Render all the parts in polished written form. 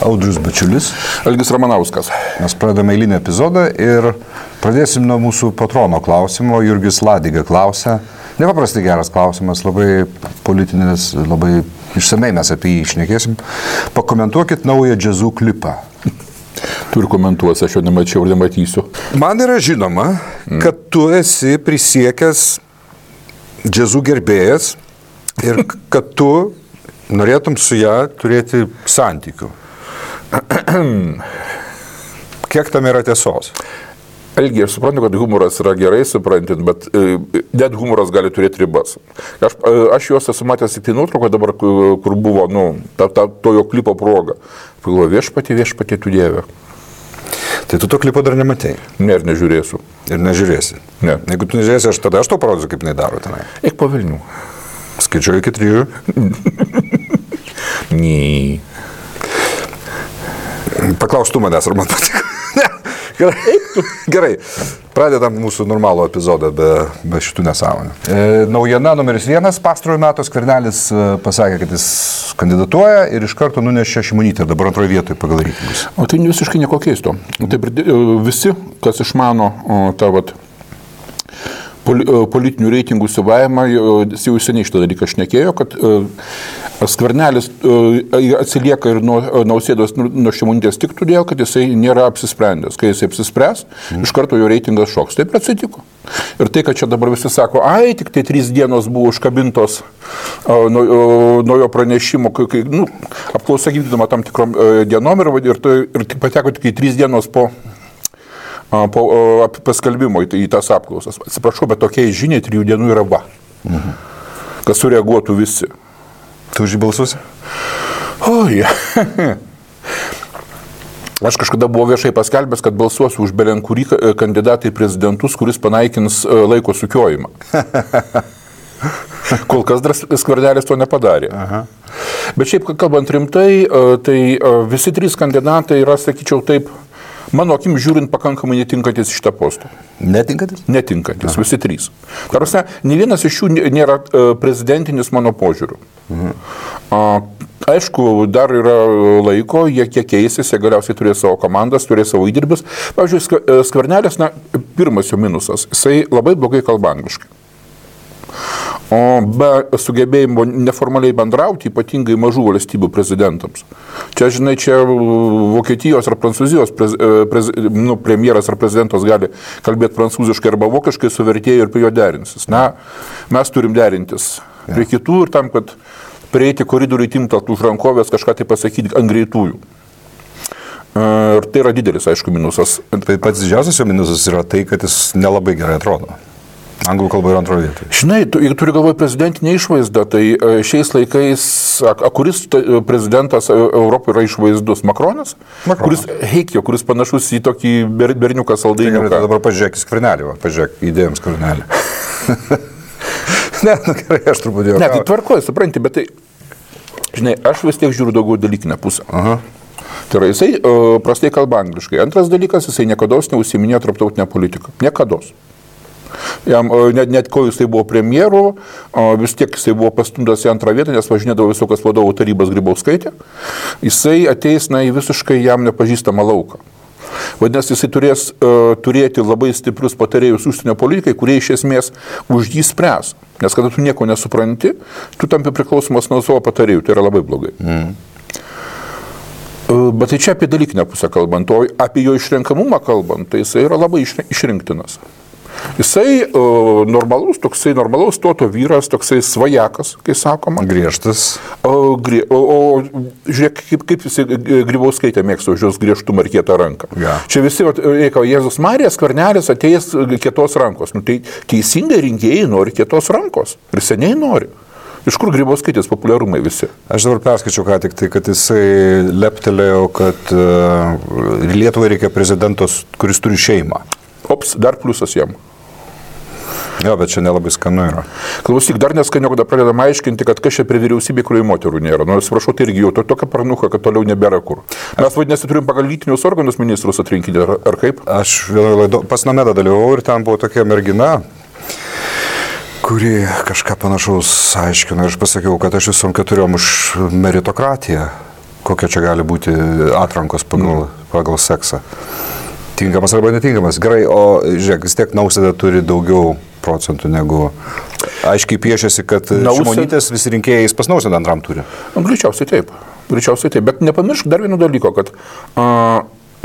Audrius Bačiulis. Algis Ramanauskas. Mes pradedame eilinį epizodą ir pradėsim nuo mūsų patrono klausimo. Jurgis Ladiga klausia. Nepaprastai geras klausimas, labai politinis, labai išsamei mes apie jį šnekėsim. Pakomentuokit naują džiazų klipą. Tu ir komentuosi, aš jo nemačiau ir nematysiu. Man yra žinoma, kad tu esi prisiekęs džiazų gerbėjas ir kad tu norėtum su ją turėti santykių. Kiek tam yra tiesos? Algi, aš suprantu, kad humoras yra gerai suprantant, bet net humoras gali turėti ribas. Aš juos esu matęs tik tai nuotrauką dabar, kur buvo, to jo klipo proga. Pagalvoju, viešpatie tu Dieve. Tai tu to klipo dar nematei? Ne, ir nežiūrėsiu. Ir nežiūrėsi? Ne. Jeigu tu nežiūrėsi, aš tau parodysiu, kaip jinai daro tenai. Eik po Vilnių. Skaičiuoju iki 3. Nee. Paklaus tu manęs, ar man patiko. Gerai, pradedam mūsų normalų epizodą be šitų nesąmonių. Naujiena numeris 1, pastarojo metų Skvernelis pasakė, kad jis kandidatuoja ir iš karto nunešė Šimonytę, dabar antroje vietoje pagal reitingus. O tai visiškai nieko keisto. Taip, visi, kas išmano tą politinių reitingų suvavimą, jau seniai šitą dalyką šnekėjo, kad Skvernelis atsilieka ir nuo Nausėdos, nuo Šimonytės tik todėl, kad jisai nėra apsisprendęs. Kai jisai apsispręs, iš karto jo reitingas šoks. Taip atsitiko. Ir tai, kad čia dabar visi sako, tik tai 3 dienos buvo užkabintos nuo jo pranešimo, apklausa vykdoma tam tikrom dienom ir tik pateko tik 3 dienos po paskelbimo į tas apklausas. Atsiprašau, bet tokiai žiniai 3 dienų yra va. Kas sureaguotų visi. Tu už jį balsuosi? Oi. Aš kažkada buvau viešai paskelbęs, kad balsuosiu už belenkurį kandidatą į prezidentus, kuris panaikins laiko sukiojimą. Kol kas dar Skvernelis to nepadarė. Aha. Bet šiaip, kalbant rimtai, tai visi 3 kandidatai yra, sakyčiau taip, mano akim žiūrint, pakankamai netinkantis šitą postą. Netinkantis? Netinkantis, visi 3. Tarsi, ne vienas iš jų nėra prezidentinis mano požiūriu. Aišku, dar yra laiko, jie kiek keisis, jie galiausiai turės savo komandas, turės savo įdirbius. Pavyzdžiui, Skvernelis, pirmas jo minusas, jisai labai blogai kalba angliškai. O be sugebėjimo neformaliai bendrauti, ypatingai mažų valstybių prezidentams. Čia, žinai, Vokietijos ar Prancūzijos premjeras ar prezidentas gali kalbėti prancūziškai arba vokiškai su vertėju ir prie jo derinsis. Mes turim derintis prie kitų ir tam, kad prieiti koridoriui timtalt už rankovės kažką tai pasakyti ant greitųjų. Ir tai yra didelis, aišku, minusas. Tai pats didžiausias jo minusas yra tai, kad jis nelabai gerai atrodo. Anglų kalba yra antroje vietoje. Žinai, jeigu turi galvoje prezidentinę išvaizdą, tai šiais laikais, kuris prezidentas Europoje yra išvaizdus? Makronas? Kuris panašus į tokį berniuką saldainiuką. Tai dabar pažiūrėk į Skvernelį, pažiūrėk įdėjom Skvernelį. Gerai, aš truputį jau. Ne, tai tvarkoju, supranti, bet tai, žinai, aš vis tiek žiūriu daugiau dalykinę pusę. Aha. Tai yra, jisai prastai kalba angliškai. Antras dalykas, jisai niekados neužsiiminėjo tarptautinę politiką. Niekados. Jam, net ko jisai buvo premjeru, vis tiek jisai buvo pastumtas į antrą vietą, nes važinėdavo visokios vadovų tarybos Grybauskaitė. Jisai ateis į visiškai jam nepažįstamą lauką. Vadinasi, jisai turės turėti labai stiprius patarėjus užsienio politikai, kurie iš esmės už jį spręs. Nes kada tu nieko nesupranti, tu tampi priklausomas nuo savo patarėjų. Tai yra labai blogai. Bet tai čia apie dalykinę pusę kalbant, o apie jo išrenkamumą kalbant, tai jisai yra labai išrinktinas. Jisai normalaus stoto vyras, toksai svajakas, kai sakoma. Griežtas. O žiūrėk, kaip jisai Grybauskaitė mėgsta už jos griežtumą ir kietą ranką. Ja. Čia visi, Jėzus Marija, Skvernelis atėjęs kietos rankos. Tai teisingai rinkėjai nori kietos rankos. Ir seniai nori. Iš kur Grybauskaitės populiarumai visi? Aš dabar perskaičiau ką tik tai, kad jisai leptelėjo, kad Lietuvai reikia prezidentos, kuris turi šeimą. Ops, dar pliusas jam. Jo, bet čia nelabai skanu yra. Klausyk, dar neskaniau, kada pradedam aiškinti, kad kas čia prie vyriausybė, kurioje moterų nėra. Atsiprašau, tai irgi jau tokia parnuka, kad toliau nebėra kur. Mes vadinasi turim pagal lytinius organus ministrus atrinkinti, ar kaip? Aš pas Namedą dalyvau ir ten buvo tokia mergina, kuri kažką panašaus aiškino. Aš pasakiau, kad aš visom 4 už meritokratiją. kokia čia gali būti atrankos pagal seksą. Tinkamas arba netinkamas. Gerai, o žiūrėk, vis tiek Nausėda turi daugiau procentų negu... Aiškiai piešiasi, kad Šimonytės visi rinkėjais pas Nausėdą antram turi. Greičiausiai taip. Bet nepamiršk dar vieno dalyko, kad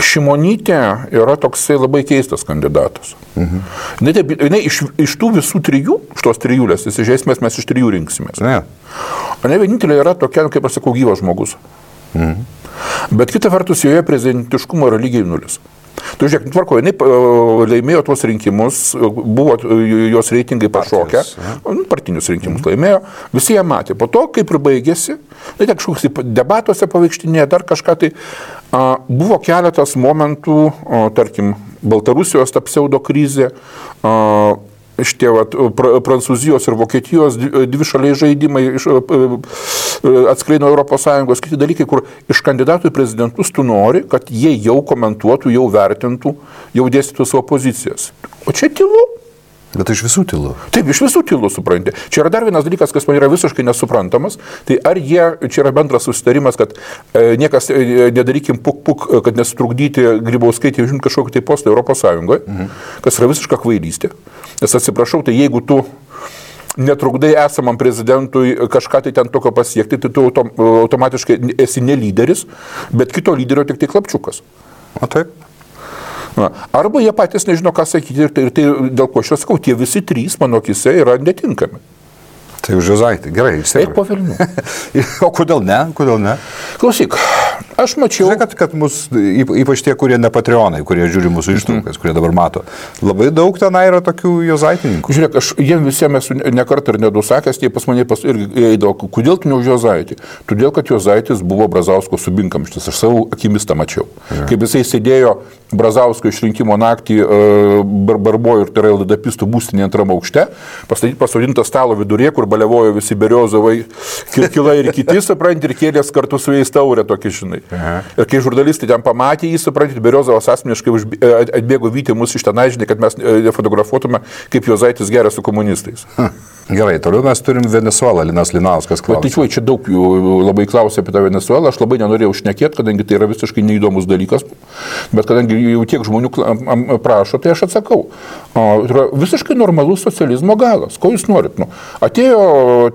Šimonytė yra toksai labai keistas kandidatas. Jinai iš tų visų trijų, iš tos trijulės, iš esmės mes iš trijų rinksimės. Ne vienintelė yra tokia, kaip aš sakau, gyvas žmogus. Bet kita vertus, joje prezidentiškumo yra lygiai nulis. Tu žiūrėk, tvarko, jinai laimėjo tuos rinkimus, buvo jos reitingai pašokę, partinius rinkimus laimėjo, visi ją matė. Po to, kaip ir baigėsi, tai kažkoks debatuose pavaikštinėje, dar kažką tai, buvo keletas momentų, tarkim, Baltarusijos ta pseudo krizė, šitie Prancūzijos ir Vokietijos dvišaliai žaidimai atskleino ES, kiti dalykai, kur iš kandidatų į prezidentus tu nori, kad jie jau komentuotų, jau vertintų, jau dėstytų savo pozicijas. O čia tylu. Bet iš visų tylu. Taip, iš visų tylu, supranti. Čia yra dar vienas dalykas, kas man yra visiškai nesuprantamas. Tai ar čia yra bendras susitarimas, kad niekas nedarykim puk, kad nesutrukdyti Grybauskaitį užimti kažkokį tai postą ES, kas yra visiška kvailystė. Nes atsiprašau, tai jeigu tu netrukdai esamam prezidentui kažką tai ten tokio pasiekti, tai tu automatiškai esi ne lyderis, bet kito lyderio tik tai klapčiukas. O taip. Arba jie patys nežino, ką sakyti ir tai dėl ko aš sakau, tie visi trys mano akise yra netinkami. Tai už Juozaitį, gerai, eik po velnių. O kodėl ne? Klausyk, aš mačiau... Žiūrėk, kad mus, ypač tie, kurie ne patreonai, kurie žiūri mūsų ištraukas, kurie dabar mato, labai daug tenai yra tokių Juozaitininkų. Žiūrėk, aš jiems visiems esu nekart ir nedusakęs, tie pas mane irgi eidavo, kodėl tu ne už Juozaitį? Todėl, kad Juozaitis buvo Brazausko subinkamštis, aš savo akimis tą mačiau. Kaip jisai sėdėjo Brazausko išrinkimo naktį Barbojų ir tai yra LDP-istų būstinė antram aukšte, pasodintas stalo vidurė, kur balevojo visi Beriozovai, Kirkila ir kiti, supranti, ir kėlės kartu su jais taurę tokį, žinai. Ir kai žurnalistai ten pamatė jį, supranti, Beriozovas asmeniškai atbėgo vyti mus iš tenai, žinai, kad mes nefotografuotume, kaip Juozaitis geria su komunistais. Gerai, toliau mes turim Venesuelą, Linas Linauskas klausia. Tai čia daug jų labai klausia apie tą Venesuelą, aš labai nenorėjau šnekėti, kadangi tai yra visiškai neįdomus dalykas, bet kadangi jau tiek žmonių prašo, tai aš atsakau. Tai yra visiškai normalus socializmo galas. Ko jūs norit? Atėjo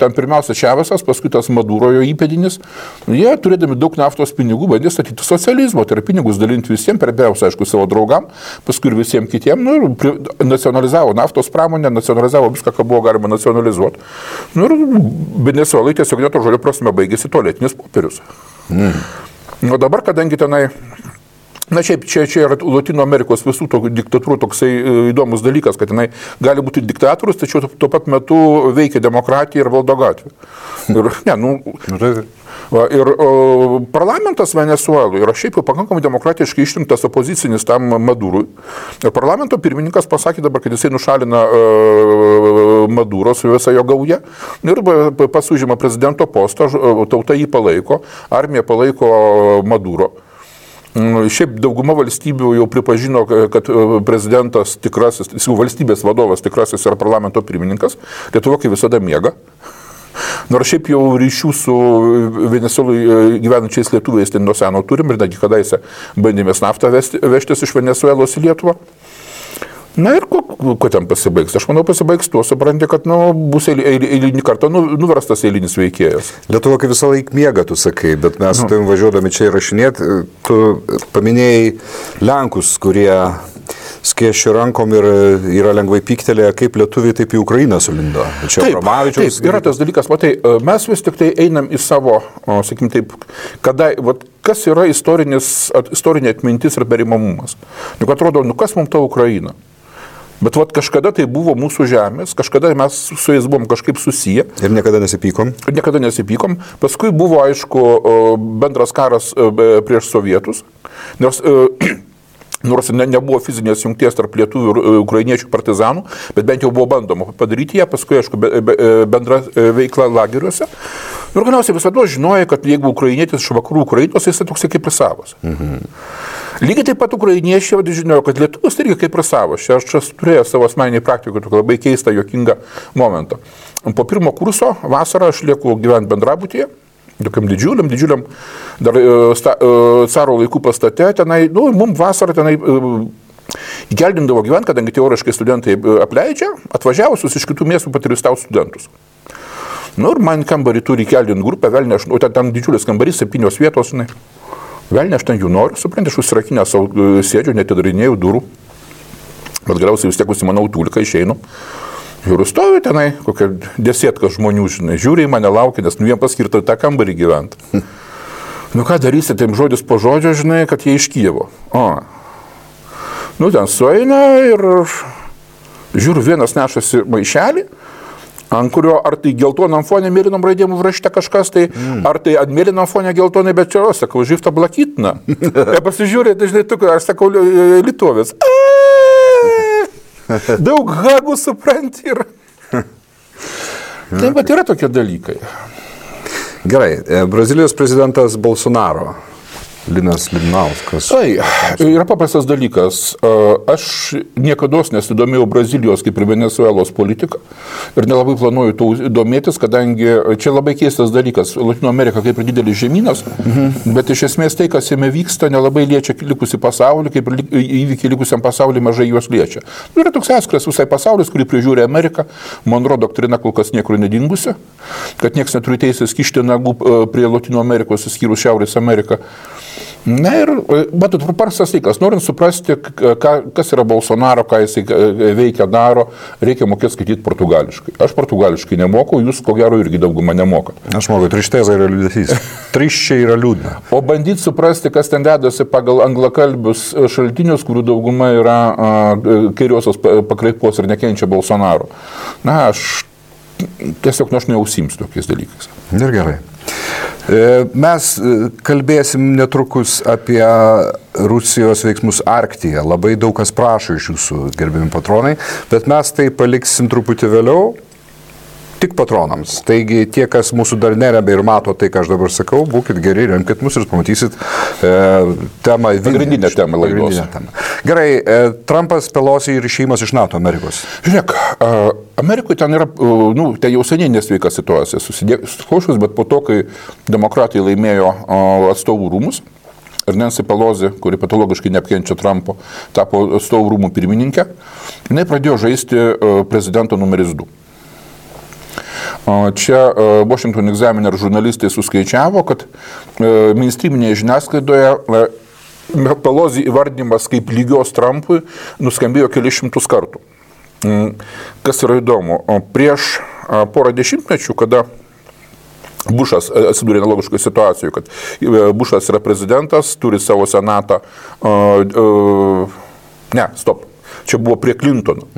ten pirmiausia Čavesas, paskui tas Maduro jo įpėdinis, jie turėdami daug naftos pinigų bandė statyti socializmo, tai yra pinigus dalinti visiems, pirmiausia, aišku, savo draugam, paskui ir visiems kitiems, nacionalizavo naftos pramonę, nacionalizavo viską, ką buvo galima nacionalizuoti. Ir Venesuelai tiesiog neto žodžio prasme baigėsi tualetinis popierius. O dabar, kadangi tenai, šiaip čia yra Latino Amerikos visų diktatūrų toksai įdomus dalykas, kad jinai gali būti diktatorius, tačiau tuo pat metu veikia demokratija ir valdo gatvė. Ir parlamentas Venesuelų yra šiaip jau pakankamai demokratiškai išrinktas opozicinis tam Madurui. Ir parlamento pirmininkas pasakė dabar, kad jisai nušalina Maduro su visa jo gauja ir pasužima prezidento postą, tauta jį palaiko, armija palaiko Maduro. Šiaip dauguma valstybių jau pripažino, kad prezidentas tikrasis, valstybės vadovas tikrasis yra parlamento pirmininkas, Lietuva kaip visada miega. Nors šiaip jau ryšių su Venesuelai gyvenančiais lietuviais ten nuo seno turim ir netgi kadaise bandėmės naftą vežtis iš Venesuelos į Lietuvą. Na ir ko ten pasibaigs? Aš manau, pasibaigs tuo, supranti, kad bus eilinį kartą nuverstas eilinis veikėjas. Lietuva kaip visą laiką miega, tu sakai, bet mes su tavim važiuodami čia įrašinėti, tu paminėjai Lenkus, kurie skėščia rankom ir yra lengvai pyktelėję, kaip lietuviai taip į Ukrainą sulindo. Čia Romavičiaus. Taip, yra tas dalykas, matai, mes vis tik tai einam į savo, sakykim taip, kas yra istorinė atmintis ir perimamumas. Juk atrodo, kas mums ta Ukraina? Bet kažkada tai buvo mūsų žemės, kažkada mes su jais buvom kažkaip susiję. Ir niekada nesipykom? Niekada nesipykom. Paskui buvo, aišku, bendras karas prieš sovietus. Nors nebuvo fizinės jungties tarp lietuvių ir ukrainiečių partizanų, bet bent jau buvo bandoma padaryti ją, paskui, aišku, bendra veikla lageriuose. Ir galiausiai visada žinojo, kad jeigu ukrainietis iš vakarų Ukrainos, jis toksai kaip ir savas. Lygiai taip pat ukrainiečiai žinojo, kad lietuvis irgi kaip ir savas. Aš turėjau savo asmeninį praktiką, tokį labai keistą, juokingą momentą. Po pirmo kurso vasarą aš lieku gyventi bendrabutyje tokiam didžiuliam dar caro laikų pastate, tenai, mums vasarą tenai įkeldindavo gyventi, kadangi teoriškai studentai apleidžia, atvažiavusius iš kitų miestų paturistauti studentus. Ir man kambarį turi įkeldinti grupę, velnė, o ten didžiulis kambarys, 7 vietos, velnė, aš ten jų noriu, supranti, aš užsirakinę savo sėdžiu, netidarinėjau durų, bet galiausiai vis tiek užsimanau tūliką, išeinu. Ir stoviu tenai, kokia 10 žmonių, žiūri į mane, laukia, nes jiem paskirta tą kambarį gyventi. Ką darysi, taip žodis po žodžio, kad jie iš Kijevo. Ten sueina ir žiūriu, vienas nešasi maišelį, ant kurio ar tai geltonam fonė mėlynom raidėm užrašyta kažkas, tai ar tai ant mėlynom fonė geltonai, bet čia, sakau, živta blakytina. Ir pasižiūrė, dažnai tu, aš sakau, litovės. Daug hagų supranti ir... Taip, bet yra tokie dalykai. Gerai, Brazilijos prezidentas Bolsonaro, Linas Lidnauskas. Yra paprastas dalykas. Aš niekada nesidomėjau Brazilijos kaip ir Venezuelos politiką ir nelabai planuoju to domėtis, kadangi čia labai keistas dalykas. Latino Amerika kaip ir didelis žemynas, bet iš esmės tai, kas jame vyksta, nelabai liečia likusį pasaulį, kaip ir įvykiai likusiam pasauliui mažai juos liečia. Yra toks atskiras visai pasaulis, kurį prižiūri Amerika. Monroe doktrina kol kas niekur nedingusi, kad niekas neturi teisės kišti nagų prie Latino Amerikos, išskyrus Šiaurės Ameriką. Ir, matot, paprastas dalykas, norint suprasti, kas yra Bolsonaro, ką jisai veikia, daro, reikia mokėti skaityti portugališkai. Aš portugališkai nemoku, jūs ko gero irgi daugumą nemokat. Aš moku, trišteza yra liūdesys. Triščiai yra liūdna. O bandyti suprasti, kas ten dedasi pagal anglakalbius šaltinius, kurių dauguma yra kairiosios pakraipos ir nekenčia Bolsonaro. Aš tiesiog aš neužsiimsiu tokiais dalykais. Ir gerai. Mes kalbėsim netrukus apie Rusijos veiksmus Arktyje. Labai daug kas prašo iš jūsų, gerbiami patronai, bet mes tai paliksim truputį vėliau, tik patronams. Taigi tie, kas mūsų dar neremia ir mato tai, ką aš dabar sakau, būkit geri, remkit mus ir pamatysit temą. Pagrindinę temą laidos. Gerai, Trumpas, Pelosi ir išėjimas iš NATO Amerikos. Žiūrėk, Amerikoje ten yra, ten jau seniai nesveika situacija susidėkusius, bet po to, kai demokratai laimėjo atstovų rūmus, ir Nancy Pelosi, kuri patologiškai neapkenčia Trumpo, tapo atstovų rūmų pirmininkė, jinai pradėjo žaisti prezidento numeris 2. Čia Washington Examiner žurnalistai suskaičiavo, kad mainstreaminėje žiniasklaidoje Pelosi įvardinimas kaip lygios Trumpui nuskambėjo kelius šimtus kartų. Kas yra įdomu, prieš porą dešimtmečių, kada Bušas atsidūrė analogiškoje situacijoje, kad Bušas yra prezidentas, turi savo senatą, čia buvo prie Clintono.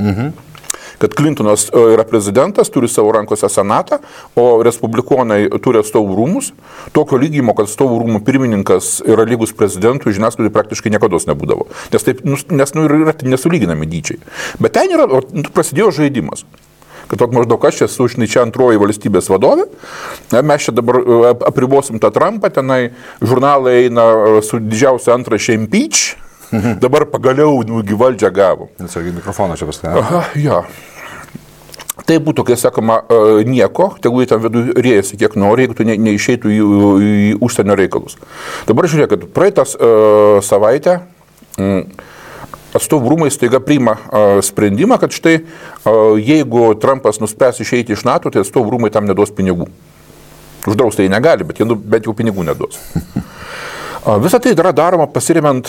Kad Clintonas yra prezidentas, turi savo rankose senatą, o respublikonai turi atstovų rūmus. Tokio lygimo, kad atstovų rūmų pirmininkas yra lygus prezidentui, žiniasklaidai praktiškai niekados nebūdavo. Nes yra nesulyginami dydžiai. Bet ten yra, prasidėjo žaidimas. Kad maždaug aš esu čia antroji valstybės vadovė, mes čia dabar apribosim tą Trumpą, tenai žurnalai eina su didžiausia antraštė impeach, dabar pagaliau valdžią gavo. Nesargiai mikrofoną čia paskui. Ja. Tai būtų, kai sakoma, nieko, tegul ten vidų rėjasi kiek nori, jeigu tu neišeitų į užsienio reikalus. Dabar žiūrėk, kad praeitas savaitę atstovų rūmai staiga priima sprendimą, kad štai jeigu Trumpas nuspręs išeiti iš NATO, tai atstovų rūmai tam neduos pinigų. Uždraus tai negali, bet jie bent jau pinigų neduos. Visą tai yra daroma pasiremiant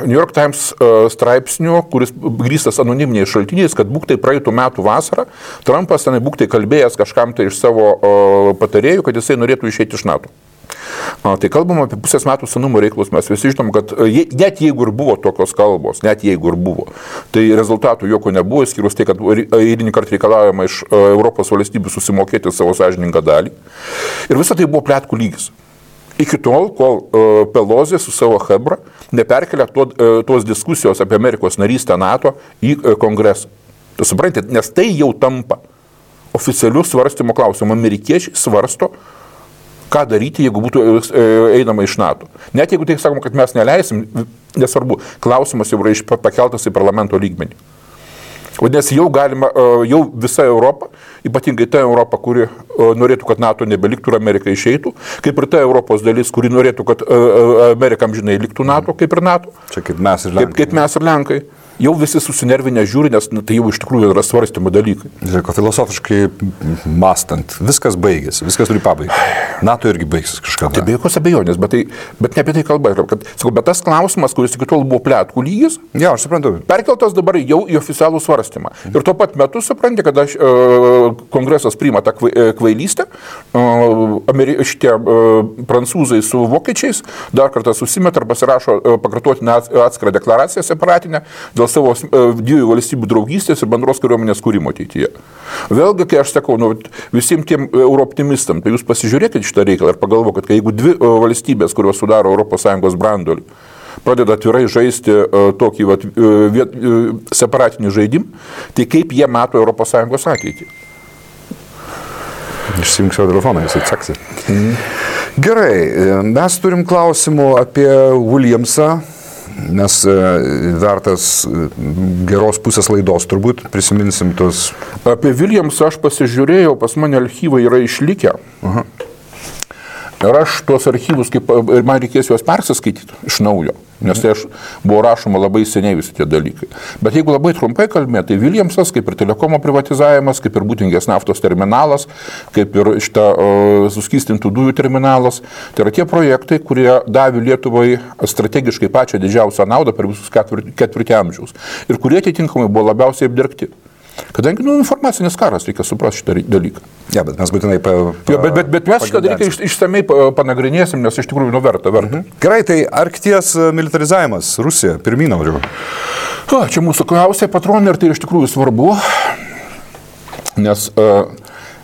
New York Times straipsniu, kuris grįstas anoniminiais šaltiniais, kad būk tai praeitų metų vasarą, Trumpas tenai būk tai kalbėjęs kažkam tai iš savo patarėjų, kad jisai norėtų išeiti iš NATO. Tai kalbama apie pusės metų senumo reikalus, mes visi žinom, kad net jeigu ir buvo tokios kalbos, tai rezultatų jokio nebuvo, skyrus tai, kad eilinį kartą reikalaujama iš Europos valstybių susimokėti savo sąžiningą dalį. Ir visą tai buvo pletkų lygis. Iki tol, kol Pelosi su savo chebra neperkelia tos diskusijos apie Amerikos narystę NATO į kongresą. Tu suprantate, nes tai jau tampa oficialių svarstymo klausimų. Amerikiečiai svarsto, ką daryti, jeigu būtų einama iš NATO. Net jeigu tai sakoma, kad mes neleisim, nesvarbu, klausimas jau yra pakeltas į parlamento lygmenį. Vadinasi, jau galima, jau visa Europa ypatingai ta Europa, kuri norėtų, kad NATO nebeliktų ir Amerika išeitų, kaip ir ta Europos dalis, kuri norėtų, kad Amerika amžinai liktų NATO, kaip ir NATO. Čia kaip mes ir Lenkai. Kaip mes ir Lenkai. Jau visi susinervinę žiūri, nes tai jau iš tikrųjų yra svarstymo dalykai. Žiūrėk, filosofiškai mąstant, viskas baigėsi, viskas turi pabaigti. NATO irgi baigsis kažkada. Tai be jokios abejonės, bet ne apie tai kalba. Bet tas klausimas, kuris iki tol buvo pletkų lygis, Ja, aš suprantu. perkeltas dabar jau į oficialų svarstymą. Ir tuo pat metu supranti, kad kongresas priima tą kvailystę, šitie prancūzai su vokiečiais dar kartą susimeta ar pasirašo pakartotinę atskirą deklaraciją separatinę dėl savo dviejų valstybių draugystės ir bendros kariuomenės kūrimo ateityje. Vėlgi, kai aš sakau, visiems tiem eurooptimistam, tai jūs pasižiūrėkite šitą reikalą ir pagalvokite, kad jeigu dvi valstybės, kurios sudaro ES branduolį, pradeda atvirai žaisti tokį separatinį žaidimą, tai kaip jie mato ES ateitį? Išsijunk savo telefoną, jis atsaksi. Gerai, mes turim klausimų apie Williamsą, nes vertas geros pusės laidos turbūt, prisiminsim tos. Apie Williamsą aš pasižiūrėjau, pas mane archyvai yra išlikę. Ir aš tuos archyvus, ir man reikės juos persiskaityti iš naujo, nes tai buvo rašoma labai seniai visi tie dalykai. Bet jeigu labai trumpai kalbėti, tai Williamsas, kaip ir telekomo privatizavimas, kaip ir Būtingės naftos terminalas, kaip ir šitą suskystintų dujų terminalas, tai yra tie projektai, kurie davė Lietuvai strategiškai pačią didžiausią naudą per visus ketvirtį amžiaus ir kurie atitinkamai buvo labiausiai apdergti. Kadangi informacinis karas, reikia suprasti šitą dalyką. Ja, bet mes būtinai bet mes šitą dalyką išsamei panagrinėsim, nes iš tikrųjų verta. Gerai, tai Arkties militarizavimas, Rusija, pirmyn noriu. Čia mūsų klausė patronai ir tai iš tikrųjų svarbu, nes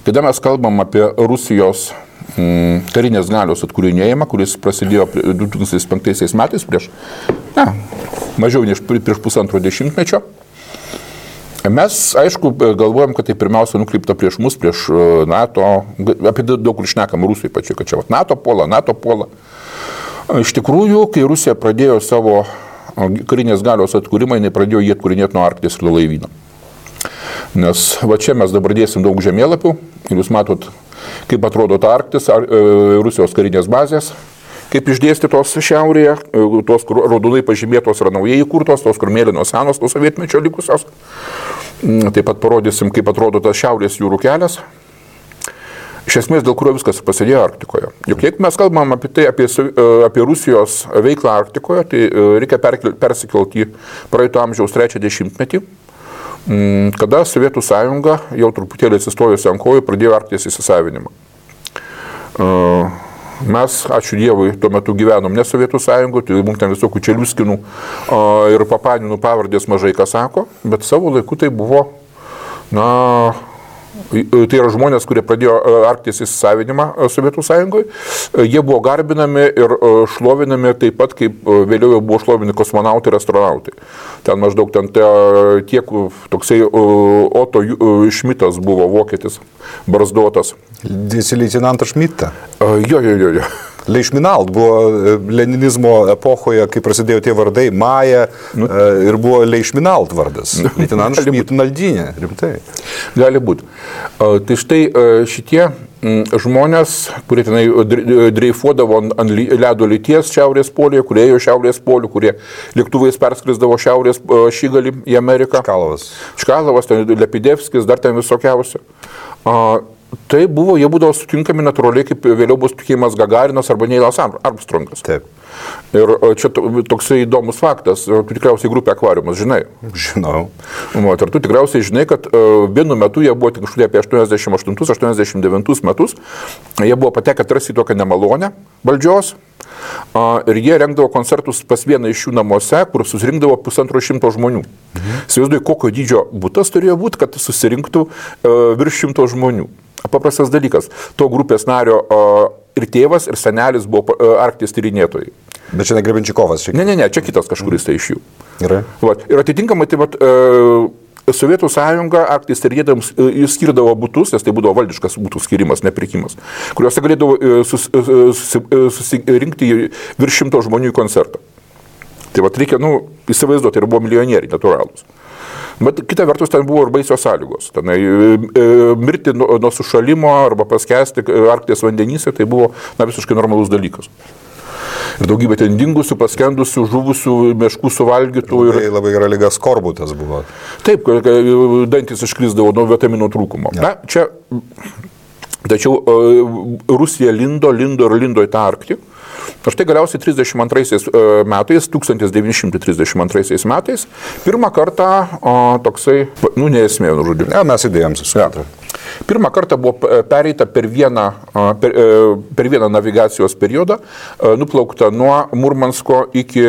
kada mes kalbam apie Rusijos karinės galios atkūrinėjimą, kuris prasidėjo 2005 metais mažiau nei prieš pusantro dešimtmečio, mes, aišku, galvojam, kad tai pirmiausia nukreipta prieš mus, prieš NATO, apie daug kur šnekam Rusijai pačiai, kad čia NATO puola. Iš tikrųjų, kai Rusija pradėjo savo karinės galios atkūrimą, jinai pradėjo jį atkūrinėti nuo Arkties ir laivyno. Nes va čia mes dabar dėsim daug žemėlapių ir jūs matot, kaip atrodo ta Arktis, Rusijos karinės bazės. Kaip išdėstytos šiaurėje, tos, kur raudonai pažymėtos yra naujai įkurtos, tos, kur mėlynos senos, tos sovietmečio likusios. Taip pat parodysim, kaip atrodo tas šiaurės jūrų kelias. Iš esmės, dėl kurio viskas prasidėjo Arktikoje. Juk jeigu mes kalbam apie tai, apie Rusijos veiklą Arktikoje, tai reikia persikelti į praeito amžiaus 3 dešimtmetį, kada Sovietų sąjunga jau truputėlį atsistojusi ant kojų pradėjo Arkties įsisavinimą. Mes, ačiū Dievui, tuo metu gyvenom ne Sovietų sąjungoje, tai mums ten visokių Čeliuskinų ir Papaninų pavardės mažai ką sako, bet savo laiku tai buvo, tai yra žmonės, kurie pradėjo Arkties įsisavinimą Sovietų sąjungoje, jie buvo garbinami ir šlovinami taip pat, kaip vėliau jau buvo šlovinami kosmonautai ir astronautai. Ten maždaug tiek toksai Otto Šmitas buvo vokietis, barzdotas. Leitenantas Šmitą. Jo. Leišminalt buvo leninizmo epochoje, kai prasidėjo tie vardai, Maja ir buvo Leišminalt vardas. Leitinantas Šmitnaldinė, rimtai. Gali būti. Tai štai šitie žmonės, kurie tenai dreifuodavo ant ledo lyties šiaurės polyje, kurie ėjo šiaurės polių, kurie lėktuvais perskrisdavo šiaurės šigalį į Ameriką. Čkalovas, Lepidevskis, dar ten visokiausia. Tai jie būdavo sutinkami natūraliai, kaip vėliau bus tikėjimas Gagarinas arba Neilas Armstrongas. Taip. Ir čia toksai įdomus faktas, tu tikriausiai grupė Akvariumas, žinai? Žinau. Ir tu tikriausiai žinai, kad vienu metu jie buvo tik apie 88-89 metus, jie buvo patekę tarsi į tokią nemalonę valdžios. Ir jie rengdavo koncertus pas vieną iš jų namuose, kur susirinkdavo 150 žmonių. Įsivaizduoju, kokio dydžio butas turėjo būti, kad susirinktų virš 100 žmonių. Paprastas dalykas. To grupės nario ir tėvas, ir senelis buvo Arkties tyrinėtojai. Bet čia ne Grebenčikovas. Ne, čia kitas kažkuris tai iš jų. Gerai. Ir atitinkamai tai Sovietų sąjunga Arkties tyrinėtojams skirdavo butus, nes tai būdavo valdiškas butų skirimas, nepirkimas, kuriuose galėdavo susirinkti virš 100 žmonių į koncertą. Tai reikia, įsivaizduoti, ir buvo milijonieriai natūralūs. Bet kita vertus, ten buvo ir baisios sąlygos. Tenai mirti nuo sušalimo arba paskesti Arkties vandenyse, tai buvo visiškai normalus dalykas. Ir daugybė ten dingusių, paskendusių, žuvusių, meškų suvalgytų. Labai gera liga skorbutas buvo. Taip, dantis iškrisdavo nuo vitaminų trūkumo. Ja. Tačiau Rusija lindo į tą Arktį. Ir štai galiausiai 1932 metais, pirmą kartą toksai, neesmė, žodžiu. Ja, mes įdėjom susitikti. Pirmą kartą buvo pereita per vieną navigacijos periodą, nuplaukta nuo Murmansko iki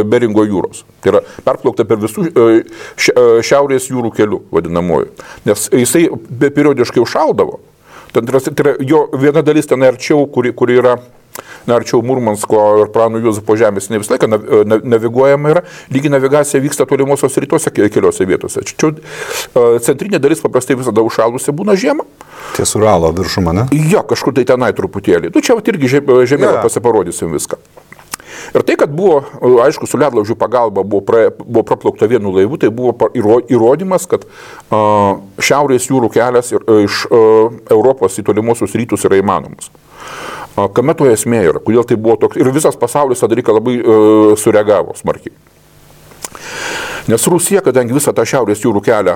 Beringo jūros. Tai yra perplaukta per visų šiaurės jūrų kelių, vadinamoju. Nes jisai periodiškai užšaldavo. Tai yra jo viena dalis ten arčiau, kuri yra arčiau Murmansko ir Prano Juozapo žemės, ne visą laiką naviguojama yra, lygi navigacija vyksta tolimosios rytuose keliose vietose. Čia centrinė dalis paprastai visada užšalusi būna žiemą. Ties Uralo viršuma, ne? Jo, kažkur tai tenai truputėlį. Čia irgi žemėlą pasiparodysim viską. Ir tai, kad buvo, aišku, su ledlaužių pagalba buvo praplaukta vienu laivu, tai buvo įrodymas, kad šiaurės jūrų kelias iš Europos į tolimuosius rytus yra įmanomas. Kame to esmė yra, kodėl tai buvo toks, ir visas pasaulis tą dalyką labai sureagavo smarkiai. Nes Rusija, kadangi visą tą šiaurės jūrų kelią,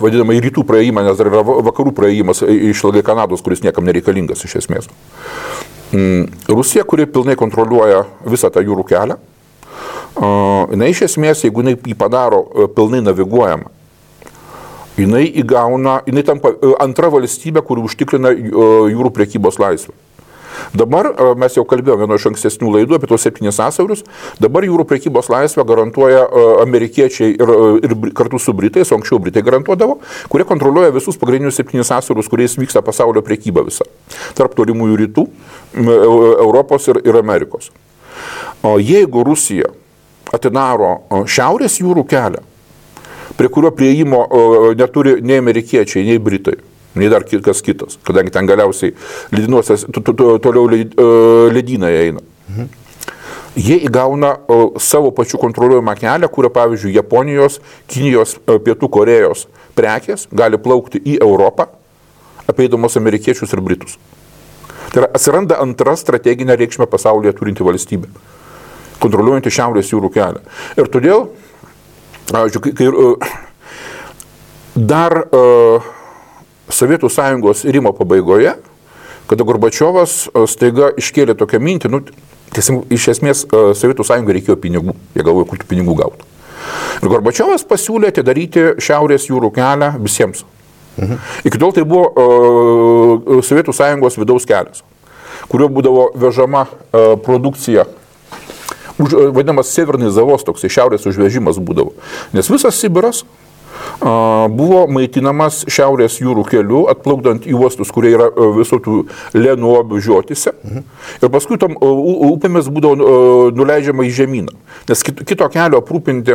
vadinamą į rytų praėjimą, nes dar yra vakarų praėjimas išilgai Kanados, kuris niekam nereikalingas iš esmės. Rusija, kuri pilnai kontroliuoja visą tą jūrų kelią, jinai iš esmės, jeigu jinai jį padaro pilnai naviguojamą, jinai tampa antra valstybė, kuri užtikrina jūrų prekybos laisvę. Dabar, mes jau kalbėjome vieno iš ankstesnių laidų apie tos 7 sąsiaurius, dabar jūrų prekybos laisvę garantuoja amerikiečiai ir kartu su Britais, o anksčiau Britai garantuodavo, kurie kontroliuoja visus pagrindinius 7 sąsiaurius, kuriais vyksta pasaulio prekyba visa. Tarp tolimųjų rytų, Europos ir Amerikos. O jeigu Rusija atidaro šiaurės jūrų kelią, prie kurio prieimo neturi nei amerikiečiai, nei Britai, nei dar kas kitas, kadangi ten galiausiai ledynuose toliau ledynai eina. Jie įgauna savo pačių kontroliuojamą kelią, kurio, pavyzdžiui, Japonijos, Kinijos, Pietų Korejos prekės gali plaukti į Europą, apeidamos amerikiečius ir Britus. Tai yra, atsiranda antra strateginė reikšmė pasaulyje turinti valstybė, kontroliuojanti šiaurės jūrų kelią. Ir todėl, kai dar Sovietų sąjungos irimo pabaigoje, kada Gorbačiovas staiga iškėlė tokią mintį, iš esmės Sovietų sąjungai reikėjo pinigų, jie galvoja, kur tų pinigų gautų. Ir Gorbačiovas pasiūlė atidaryti šiaurės jūrų kelią visiems. Iki tol tai buvo Sovietų sąjungos vidaus kelias, kuriuo būdavo vežama produkcija, vadinamas Severnis Zavos, toks šiaurės užvežimas būdavo. Nes visas Sibiras buvo maitinamas šiaurės jūrų keliu, atplaukdant į uostus, kurie yra visokių Lenuobių žiotise. Ir paskui tam upėmis būdavo nuleidžiama į žemyną. Nes kito kelio aprūpinti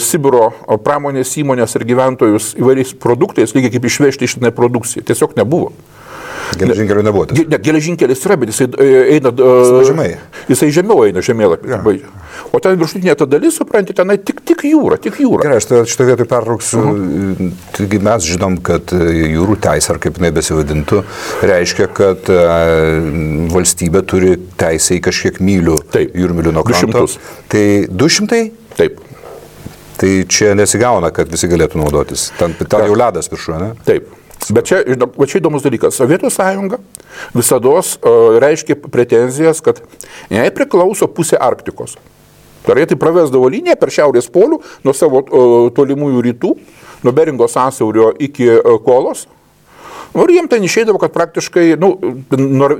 Sibiro pramonės įmonės ir gyventojus įvairiais produktais, lygiai kaip išvežti iš tenai produkciją. Tiesiog nebuvo. Geležinkelių nebuvo. Ne, geležinkelis yra, bet jisai eina... Jisai žemiau eina žemėlapį. Ja. O ten viršutinė ta dalis, supranti, tenai tik jūra. Gerai, aš šitą vietą pertrauksiu. Taigi mes žinom, kad jūrų teisė, ar kaip jinai besivadintų, reiškia, kad valstybė turi teisę į kažkiek mylių, jūrmylių nuo kranto. 200. Tai 200? Taip. Tai čia nesigauna, kad visi galėtų naudotis. Ten jau ledas viršuje, ne? Taip. Bet čia įdomus dalykas. Sovietų sąjunga visados reiškia pretenzijas, kad jai priklauso pusė Arktikos. Tai jie tai pravesdavo liniją per šiaurės polių nuo savo tolimųjų rytų, nuo Beringo sąsiaurio iki Kolos. Ir jiem ten išeidavo, kad praktiškai,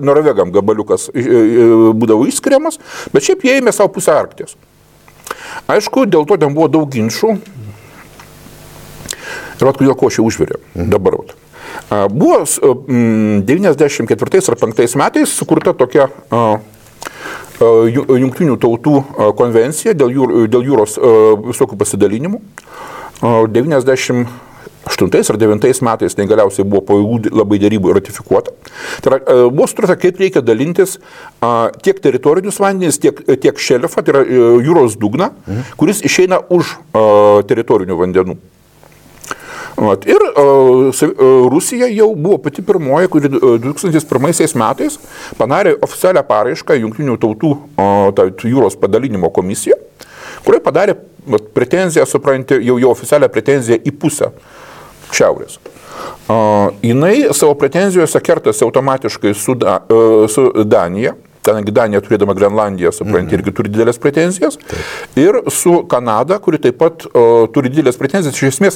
norvegam gabaliukas būdavo išskiriamas, bet šiaip jie ėmė savo pusę Arkties. Aišku, dėl to ten buvo daug ginčų. Ir kodėl ko čia užvirė dabar. Buvo 94 ar 5 metais sukurta tokia Jungtinių tautų konvencija dėl jūros visokių pasidalinimų. ar 9 metais tai galiausiai buvo po ilgų labai dėrybų ratifikuota. Tai yra, buvo sutarta, kaip reikia dalintis tiek teritorinius vandenis, tiek šelfą, tai yra jūros dugną, kuris išeina už teritorinių vandenų. Ir Rusija jau buvo pati pirmoji, kuri 2001 metais padarė oficialią paraišką Jungtinių tautų jūros padalinimo komisiją, kurioje padarė pretenziją, supranti, jau oficialią pretenziją į pusę šiaurės. Jinai savo pretenzijose kertasi automatiškai su Danija, kadangi Danija turėdama Grenlandiją, supranti, irgi turi didelės pretenzijas, ir su Kanada, kuri taip pat turi didelės pretenzijas. Iš esmės,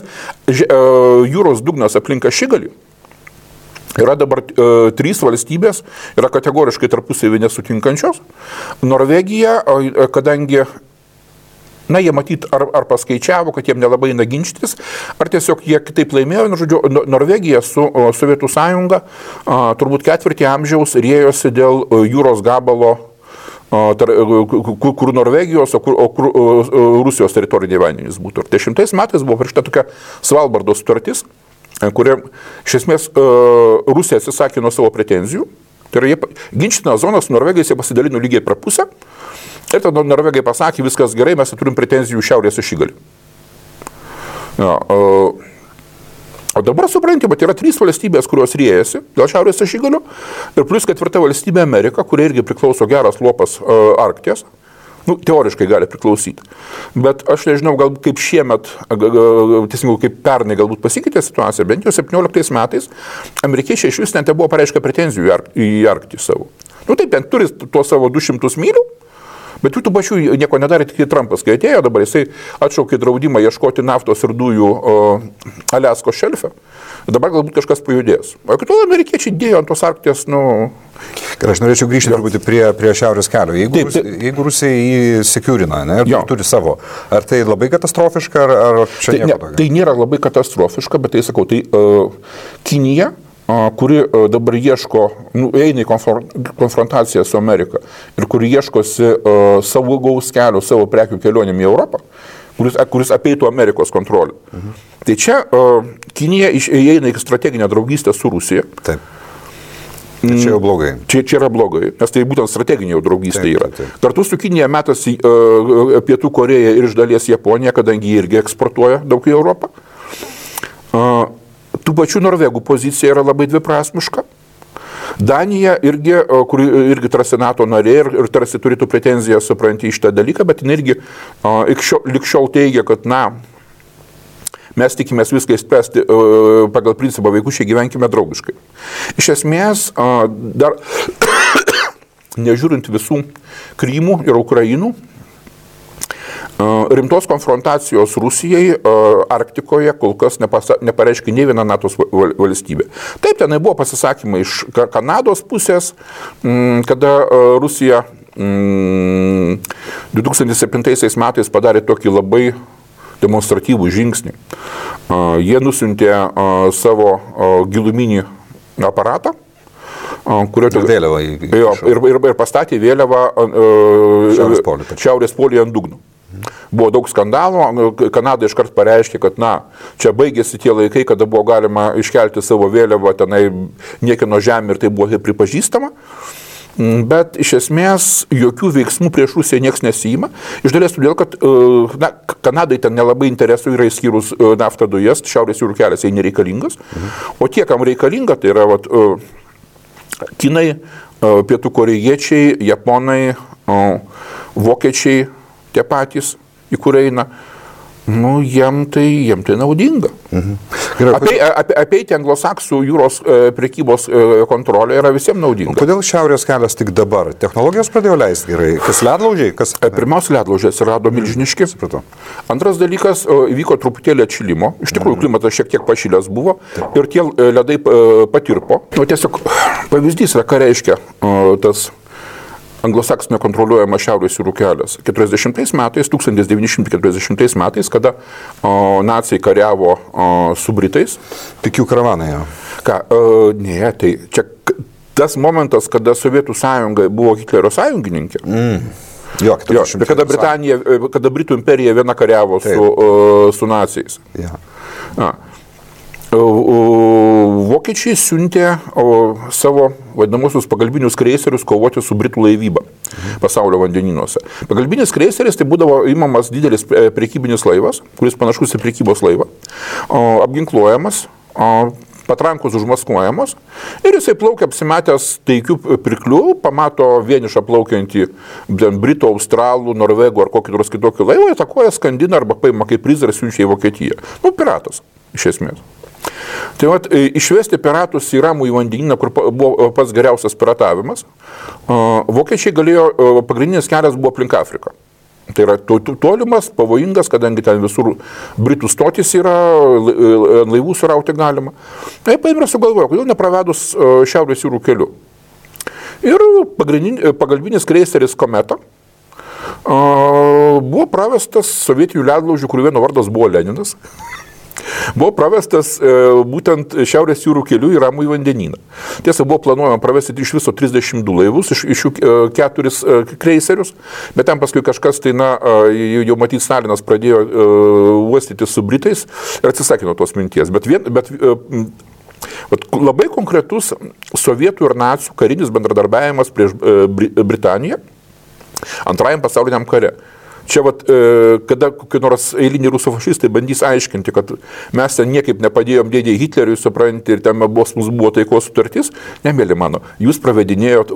jūros dugnas aplink Ašigalį yra dabar 3 valstybės, yra kategoriškai tarpusavy nesutinkančios. Norvegija, kadangi jie matyt, ar paskaičiavo, kad jiem nelabai eina ginčytis, ar tiesiog jie kitaip laimėjo. Žodžiu, Norvegija su Sovietų sąjunga turbūt 4 amžiaus rėjosi dėl jūros gabalo, kur Norvegijos, o kur Rusijos teritoriniai vandenys būtų. Ir 10 metais buvo parašyta tokia Svalbardo sutartis, kuria iš esmės Rusija atsisakė nuo savo pretenzijų. Tai yra, ginčytinas zonas Norvegijos jie pasidalino lygiai per pusę. Ir tada Norvegai pasakė, viskas gerai, mes turim pretenzijų šiaurės Ašigalį. O dabar supranti, bet yra 3 valstybės, kurios riejasi dėl šiaurės Ašigalio, ir plus 4 valstybė Amerika, kuria irgi priklauso geras lopas Arkties. Teoriškai gali priklausyti. Bet aš nežinau, galbūt kaip šiemet, teisingiau kaip pernai galbūt pasikeitė situacija, bent jau 17 metais amerikiečiai iš vis net buvo pareiškę pretenzijų į Arktį savo. Taip, ten turi tuos savo 200 mylių, bet tų pačių nieko nedarė, tik Trumpas, kai atėjo, dabar jisai atšaukė draudimą ieškoti naftos ir dujų Aliaskos šelfe. Dabar galbūt kažkas pajudės. O kitų amerikiečiai dėjo ant tos Arkties, Ir aš norėčiau grįžti truputį prie Šiaurės kelio. Jeigu Rusija jį sekiurina, ir turi savo, ar tai labai katastrofiška, ar čia nieko tokio? Tai nėra labai katastrofiška, bet tai sakau, Kinija, kuri dabar ieško, eina į konfrontaciją su Amerika ir kuri ieškosi savo gaus kelio, savo prekių kelionėm į Europą, kuris apeitų Amerikos kontrolę. Tai čia Kinija įeina į strateginę draugystę su Rusija. Taip. Čia jau blogai. Čia yra blogai, nes tai būtent strateginė jau draugystė yra. Kartu su Kinija metasi Pietų Koreja ir iš dalies Japonija, kadangi jie irgi eksportuoja daug į Europą. Tų pačių Norvegų pozicija yra labai dviprasmiška. Danija irgi, kuri irgi tarsi NATO narė ir tarsi turėtų pretenziją supranti iš tą dalyką, bet jin irgi likščiau teigia, kad mes tikimės viską įspręsti pagal principą vaikučiai gyvenkime draugiškai. Iš esmės, dar nežiūrint visų Krymų ir Ukrainų, rimtos konfrontacijos Rusijai Arktikoje kol kas nepareiškė nei viena NATO valstybė. Taip, tenai buvo pasisakymai iš Kanados pusės, kada Rusija 2007 metais padarė tokį labai demonstratyvų žingsnį. Jie nusiuntė savo giluminį aparatą, ir pastatė vėliavą Šiaurės polyje ant dugno. Buvo daug skandalų, Kanada iškart pareiškė, kad čia baigėsi tie laikai, kada buvo galima iškelti savo vėliavą tenai niekieno žemė ir tai buvo pripažįstama. Bet iš esmės jokių veiksmų prieš Rusiją nieks nesijima. Iš dalies todėl, kad Kanadai ten nelabai interesų yra išskyrus naftą dujas, Šiaurės jūrų kelias jai nereikalingas. O tie, kam reikalinga, tai yra Kinai, Pietų korėjiečiai, Japonai, Vokiečiai, tie patys, į kur eina. Jiem tai naudinga. Apeiti anglosaksų jūros prekybos kontrolę yra visiems naudinga. Kodėl Šiaurės kelias tik dabar? Technologijos pradėjo leisti gerai? Kas ledlaužiai? Pirmiausia, ledlaužiai atsirado milžiniški. Įvyko truputėlį atšilimo. Iš tikrųjų, klimatas šiek tiek pašilęs buvo ir tie ledai patirpo. Tiesiog pavyzdys yra, ką reiškia tas anglosaksinio kontroliuojama Šiaurės jūrų kelias. 1940 metais, kada naciai kariavo su Britais. Tik jų karavanai jau. Ne, tai čia tas momentas, kada Sovietų sąjunga buvo Hitlerio sąjungininkė. Kada Britų imperija viena kariavo su naciais. Vokiečiai siuntė savo vadinamosius pagalbinius kreiserius kovoti su Britų laivyba pasaulio vandenynuose. Pagalbinis kreiseris tai būdavo imamas didelis prekybinis laivas, kuris panašus į prekybos laivą, apginkluojamas, patrankos užmaskuojamos ir jisai plaukia apsimetęs taikių pirklių, pamato vienišą plaukiantį Britų, Australų, Norvegų ar kokį nors kitokį laivą, atakuoja, skandina arba paima kaip prizą ir siunčia į Vokietiją. Piratas, iš esmės. Tai vat, išvesti piratus į Ramųjį vandenyną, kur buvo pats geriausias piratavimas, vokiečiai galėjo, pagrindinis kelias buvo aplink Afriką. Tai yra tolimas, pavojingas, kadangi ten visur Britų stotis yra, laivų surauti galima. Tai paėmė sugalvojo, kodėl nepravedus Šiaurės jūrų keliu. Ir pagalbinis kreiseris Kometa buvo pravestas sovietinių ledlaužių, kurių vieno vardas buvo Leninas. Buvo pravestas būtent Šiaurės jūrų keliu į Ramųjį vandenyną. Tiesa, buvo planuojama pravesti iš viso 32 laivus, iš jų 4 kreiserius, bet ten paskui kažkas, tai jau matyt, Stalinas pradėjo uostyti su Britais ir atsisakė nuo tos minties. Bet labai konkretus sovietų ir nacių karinis bendradarbiavimas prieš Britaniją Antrajam pasauliniam kare. Čia kada kokie nors eiliniai rusų fašistai bandys aiškinti, kad mes ten niekaip nepadėjom dėdėjai Hitleriui, supranti, ir ten mums buvo taikos sutartis, nemėly mano, jūs pravedinėjot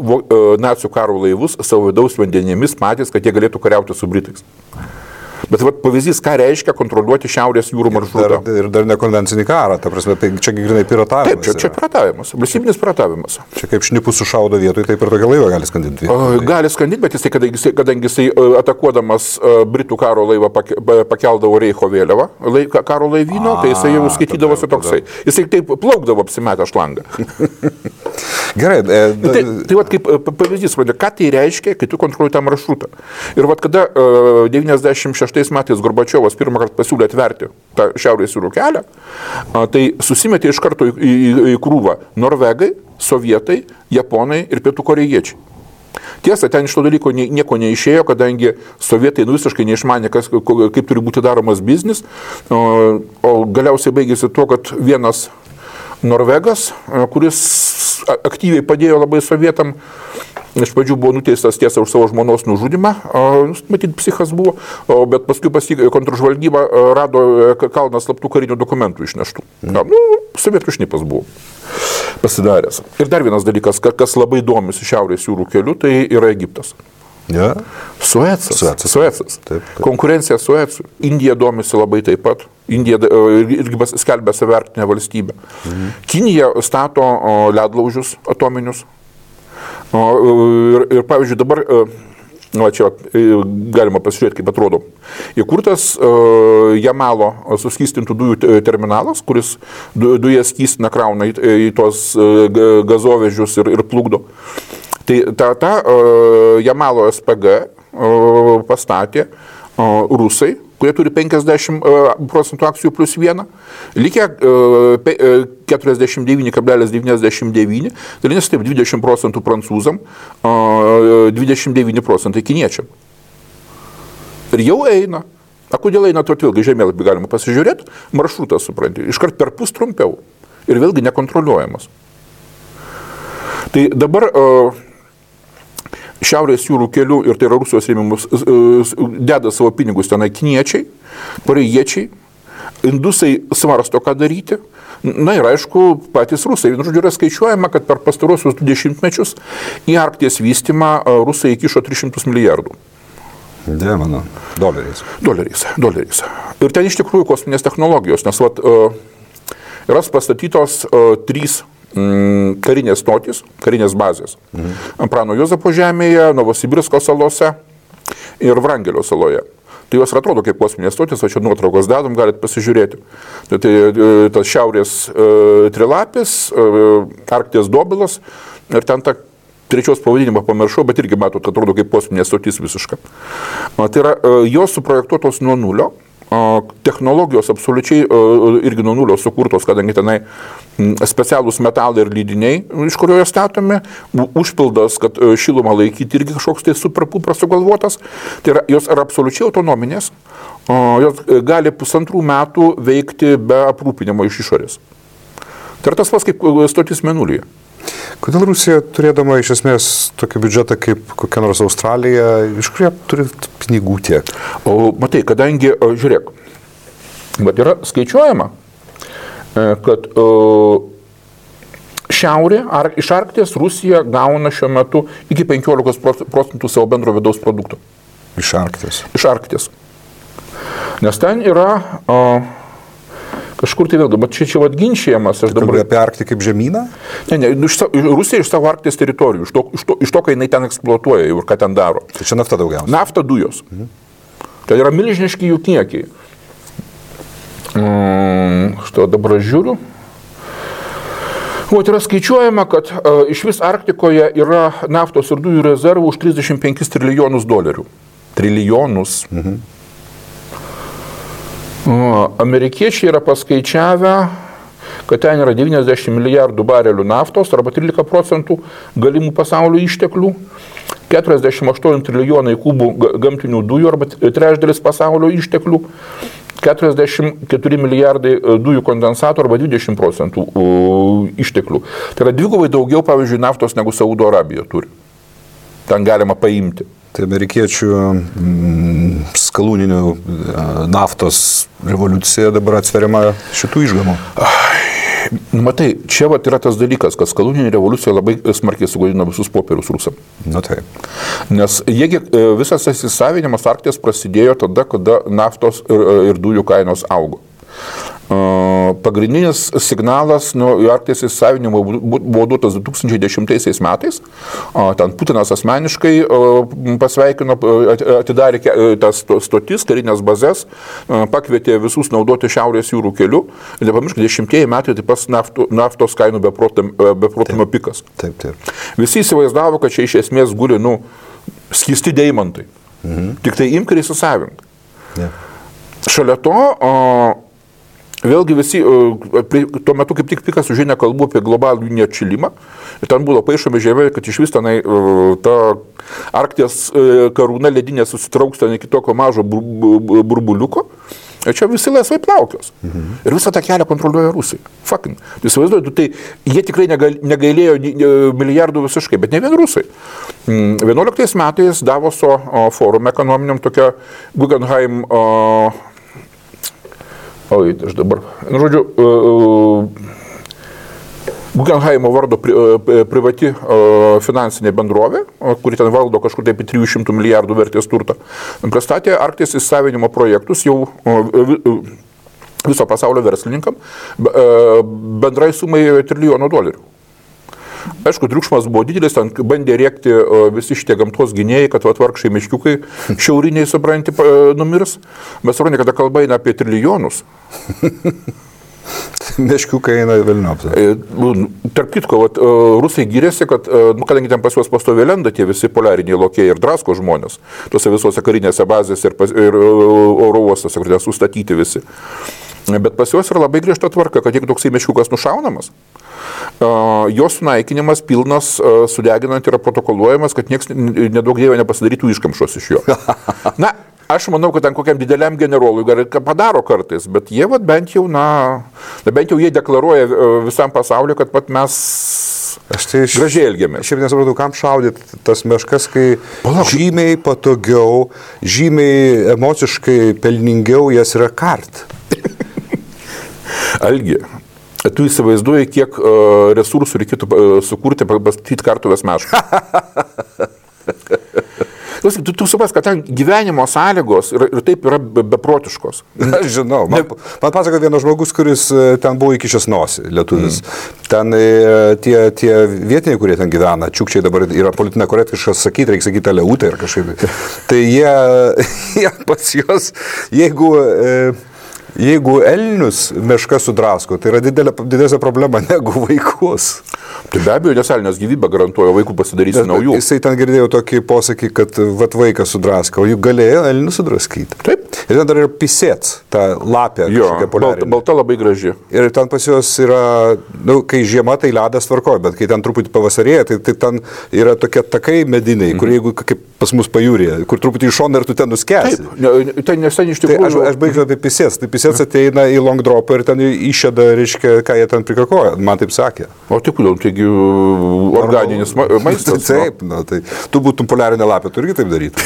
nacių karo laivus savo vidaus vandenėmis patys, kad jie galėtų kariauti su Britais. Bet pavyzdys, ką reiškia kontroliuoti Šiaurės jūrų maršrutą. Ir dar nekonvencinį karą, ta prasme, tai čia grinai piratavimas. Taip, čia piratavimas, valstybinis piratavimas. Čia kaip šnipus sušaudo vietoj, taip ir tokia laiva gali skandinti. Gali skandinti, bet kadangi jisai atakuodamas Britų karo laivą pakeldavo Reicho vėliavą, karo laivyno, tai jisai jau skaitydavosi toksai. Jisai taip plaukdavo apsimetę šlangą. Gerai. Tai kaip pavyzdys, ką tai reiškia, kai tu kontroliuoji tą maršrutą. Ir kada 96 metais Gorbačiovas pirmą kartą pasiūlė atverti tą Šiaurės jūrų kelią, tai susimetė iš karto į krūvą norvegai, sovietai, japonai ir pietų korėjiečiai. Tiesa, ten iš to dalyko nieko neišėjo, kadangi sovietai visiškai neišmanė, kaip turi būti daromas biznis, o galiausiai baigėsi tuo, kad vienas norvegas, kuris aktyviai padėjo labai sovietam, iš pradžių buvo nuteistas tiesa už savo žmonos nužudimą, matyt, psichas buvo, bet paskui kontržvalgyba rado kalną slaptų karinių dokumentų išneštų. Sovietų šnipas buvo pasidaręs. Ir dar vienas dalykas, kas labai domisi Šiaurės jūrų keliu, tai yra Egiptas. Ja. Suecas. Taip. Konkurencija Suecui. Indija domisi labai taip pat. Indija irgi skelbia savertinę valstybę. Kinija stato ledlaužius atominius. Ir pavyzdžiui, dabar, čia galima pasižiūrėti, kaip atrodo, įkurtas Jamalo suskystintų dujų terminalas, kuris dujas skystina, krauna į tos gazovežius ir plukdo. Tai tą Jamalo SPG pastatė rusai, kurie turi 50% akcijų plus 1, likę 49,99, dalinės taip 20% prancūzam, 29% kiniečiam. Ir jau eina. Kodėl eina, to vėlgi žemėlapį galima pasižiūrėti, maršrutas, supranti, iškart per pus trumpiau ir vėlgi nekontroliuojamas. Tai dabar Šiaurės jūrų kelių, ir tai yra Rusijos rėmimus, deda savo pinigus tenai kiniečiai, korėjiečiai, indusai svarsto, ką daryti. Na ir aišku, patys rusai. Žodžiu, yra skaičiuojama, kad per pastarosius 20 mečius į Arkties vystymą rusai įkišo 300 milijardų. Dievano, doleriais. Doleriais. Ir ten iš tikrųjų kosminės technologijos, nes yra pastatytos 3 karinės stotys, karinės bazės. Prano Juozapo žemėje, Novosibirsko salose ir Vrangelio saloje. Tai jos atrodo kaip kosminės stotys, o čia nuotraukos dedam, galite pasižiūrėti. Tai tas šiaurės trilapis, Arkties dobilas ir ten ta trečios pavadinimą pamiršau, bet irgi matot, atrodo kaip kosminės stotys visiška. Tai yra jos suprojektuotos nuo nulio. Technologijos absoliučiai irgi nuo nulio sukurtos, kadangi tenai specialūs metalai ir lydiniai, iš kurio jos statomi, užpildas, kad šilumą laikyti irgi kažkoks tai superpupras sugalvotas. Tai yra, jos yra absoliučiai autonominės, jos gali 1,5 metų veikti be aprūpinimo iš išorės. Tai yra tas pats kaip stotis Mėnulyje. Kodėl Rusija, turėdama iš esmės tokį biudžetą kaip kokia nors Australija, iš kur jie turi pinigų tiek? O matai, kadangi, žiūrėk, bet yra skaičiuojama, kad šiaurė, iš Arkties Rusija gauna šiuo metu iki 15% savo bendro vidaus produkto. Iš Arkties? Iš Arkties. Nes ten yra kažkur tai vėlgi, bet čia atginčiamas. Kalbėjai apie Arktį kaip žemyną? Ne, Rusija iš savo Arkties teritorijų, iš to, kai jinai ten eksploatuoja ir ką ten daro. Tai čia nafta daugiausiai? Nafta, dujos. Tai yra milžiniški jų kiekiai. Štai dabar žiūriu. O yra skaičiuojama, kad iš vis Arktikoje yra naftos ir dujų rezervų už 35 trilijonus dolerių. Trilijonus. Amerikiečiai yra paskaičiavę, kad ten yra 90 milijardų barelių naftos arba 13% galimų pasaulio išteklių, 48 trilijonai kubų gamtinių dujų arba trečdalis pasaulio išteklių, 44 milijardai dujų kondensatų arba 20% išteklių. Tai yra dvigubai daugiau, pavyzdžiui, naftos negu Saudo Arabija turi. Ten galima paimti. Tai amerikiečių skalūninių naftos revoliucija dabar atsveriama šitų išgamų. Matai, čia yra tas dalykas, kad skalūninė revoliucija labai smarkiai sugadino visus popierius rusam. Na taip. Nes visas įsisavinimas Arkties prasidėjo tada, kada naftos ir dujų kainos augo. Pagrindinis signalas Arkties įsisavinimo buvo duotas 2010 metais. Ten Putinas asmeniškai pasveikino, atidarė tas stotis, karinės bazės, pakvietė visus naudoti Šiaurės jūrų keliu. Ir nepamiršk, 10 metai tai pas naftos kainų beprotimo pikas. Taip, taip. Visi įsivaizdavo, kad čia iš esmės guli skysti deimantai. Tik tai imk ir įsisavink. Šalia to vėlgi visi, tuo metu kaip tik pikas užėnė kalbų apie globalų neatšilimą. Ir ten buvo paišomi žemė, kad iš vis tenai ta Arkties karūna ledinė susitrauks ten iki tokio mažo burbuliuko. Ir čia visi laisvai plaukios. Ir visą tą kelią kontroliuoja Rusai. Fucking. Įsivaizduoju, tai jie tikrai negailėjo milijardų visiškai, bet ne vien Rusai. 11 metais Davoso forume ekonominiam tokia Guggenheim aš dabar, žodžiu, Guggenheimo vardo privati finansinė bendrovė, kuri ten valdo kažkur taip 300 milijardų vertės turtą, pristatė Arkties įsisavinimo projektus jau viso pasaulio verslininkam bendrai sumai $1 trilijono. Aišku, triukšmas buvo didelis, ten bandė rėkti visi šitie gamtos gynėjai, kad vargšai meškiukai šiauriniai, supranti, numirs. Bet supranti, kada kalba eina apie trilijonus. Meškiukai eina velniop. Tarp kitko, rusai gyrėsi, kad, kadangi ten pas juos pastoviai lenda tie visi poliariniai lokiai ir drasko žmonės, tose visose karinėse bazėse ir oro uostose, kur ten sustatyti visi. Bet pas juos yra labai griežta tvarka, kad jeigu toksai meškiukas nušaunamas, jos sunaikinimas pilnas sudeginant yra protokoluojamas, kad niekas nedaug dievė nepasidarytų iškamšos iš jo. Na, aš manau, kad ten kokiam dideliam generolui padaro kartais, bet jie bent jau jie deklaruoja visam pasauliu, kad mes gražiai elgiamės. Šiaip nesupratau, kam šaudyti tas meškas, kai žymiai patogiau, žymiai emociškai pelningiau jas yra kart. Algi, tu įsivaizduoji, kiek resursų reikėtų sukurti, pastatyti kartuvės mešką. Tu supras, kad ten gyvenimo sąlygos ir taip yra beprotiškos. Aš žinau, man pasako vienas žmogus, kuris ten buvo įkišęs nosį, lietuvis. Ten tie vietiniai, kurie ten gyvena, čiukčiai dabar yra politinė korektiškas sakyti, reikia sakyti aleutė ir kažkaip. Tai jie pas juos, jeigu elnius meška sudrasko, tai yra didesnė problema negu vaikus. Tai be abejo, nes elnias gyvybę garantuoja, vaikų pasidarysi naujų. Jisai ten girdėjo tokį posakį, kad vaikas sudrasko, o juk galėjo elnius sudraskyti. Taip. Ir ten dar yra pisėt, ta lapė, kažkokia poliarinė. Balta labai graži. Ir ten pas juos yra, kai žiema, tai ledas tvarkoja, bet kai ten truputį pavasarėja, tai ten yra tokie takai mediniai, kur jeigu kaip pas mus pajūrėje, kur truputį iš šono ir tu ten nuskęsi. Taip, tai nesen iš tikrųjų. Tai aš baigsiu apie pisės. Tai pisės ateina į long dropą ir ten išėda, reiškia, ką jie ten prikakoja. Man taip sakė. O tai kodėl, taigi organinis maistas. Taip, tai tu būtum poliarinė lapė, tu irgi taip daryti.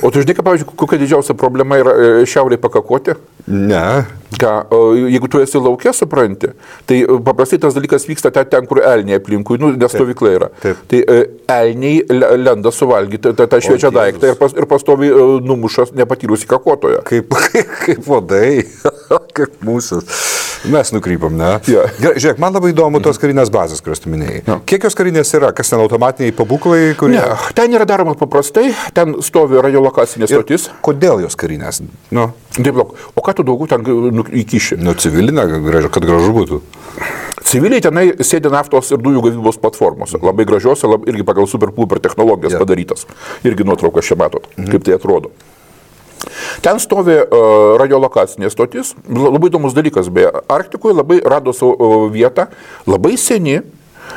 O tu žinai, pavyzdžiui, kokia didžiausia problema yra šiauriai pakakoti? Ne. Ką, jeigu tu esi lauke, supranti, tai paprastai tas dalykas vyksta ten, kur elniai aplinkui, nes stovykla yra. Taip. Tai elniai lenda suvalgyti tą šviečią daiktą ir pastovi numušas nepatyrusi kakotoje. Kaip vadai, kaip mūsų. Mes nukrypam, ne? Ja. Gerai, žiūrėk, man labai įdomu tos karinės bazės, kurias tu minėjai. Ja. Kiek jos karinės yra? Kas ten automatiniai pabūklai? Kurie... Ne, ten yra daroma paprastai, ten stovi radiolokacinė stotis. Kodėl jos karinės? Nu. Taip, o ką tu daugiau ten įkiši? Nu, civilinė, kad gražu būtų. Civiliai tenai sėdi naftos ir dujų gavybos platformose. Labai gražiose, irgi pagal super technologijas padarytas. Irgi nuotraukas čia matot, kaip tai atrodo. Ten stovi radiolokacinė stotis. Labai įdomus dalykas, beje. Arktikoje labai rado savo vietą, labai seni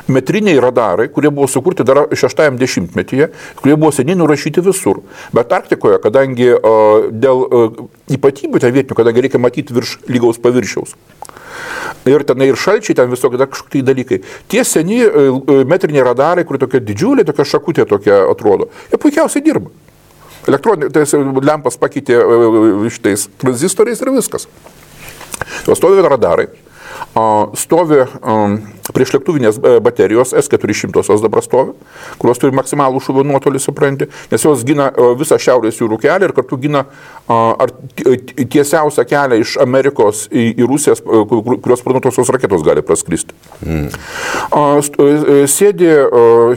metriniai radarai, kurie buvo sukurti dar 60-metyje, kurie buvo seniai nurašyti visur. Bet Arktikoje, kadangi dėl ypatybių ten vietinių, kadangi reikia matyti virš lygaus paviršiaus. Ir tenai ir šalčiai, ten visokie kažkokie dalykai. Tie seni metriniai radarai, kurie tokia didžiulė, tokia šakutė tokia atrodo, jie puikiausiai dirba. Elektroninė, tai lempas pakeitė šitais tranzistoriais ir viskas. Stovi radarai, stovi priešlėktuvinės baterijos S400 dabar stovi, kurios turi maksimalų šūvio nuotolį, supranti, nes jos gina visą šiaurės jūrų kelią ir kartu gina tiesiausią kelią iš Amerikos į Rusiją, kurios sparnuotosios raketos gali praskristi. Sėdi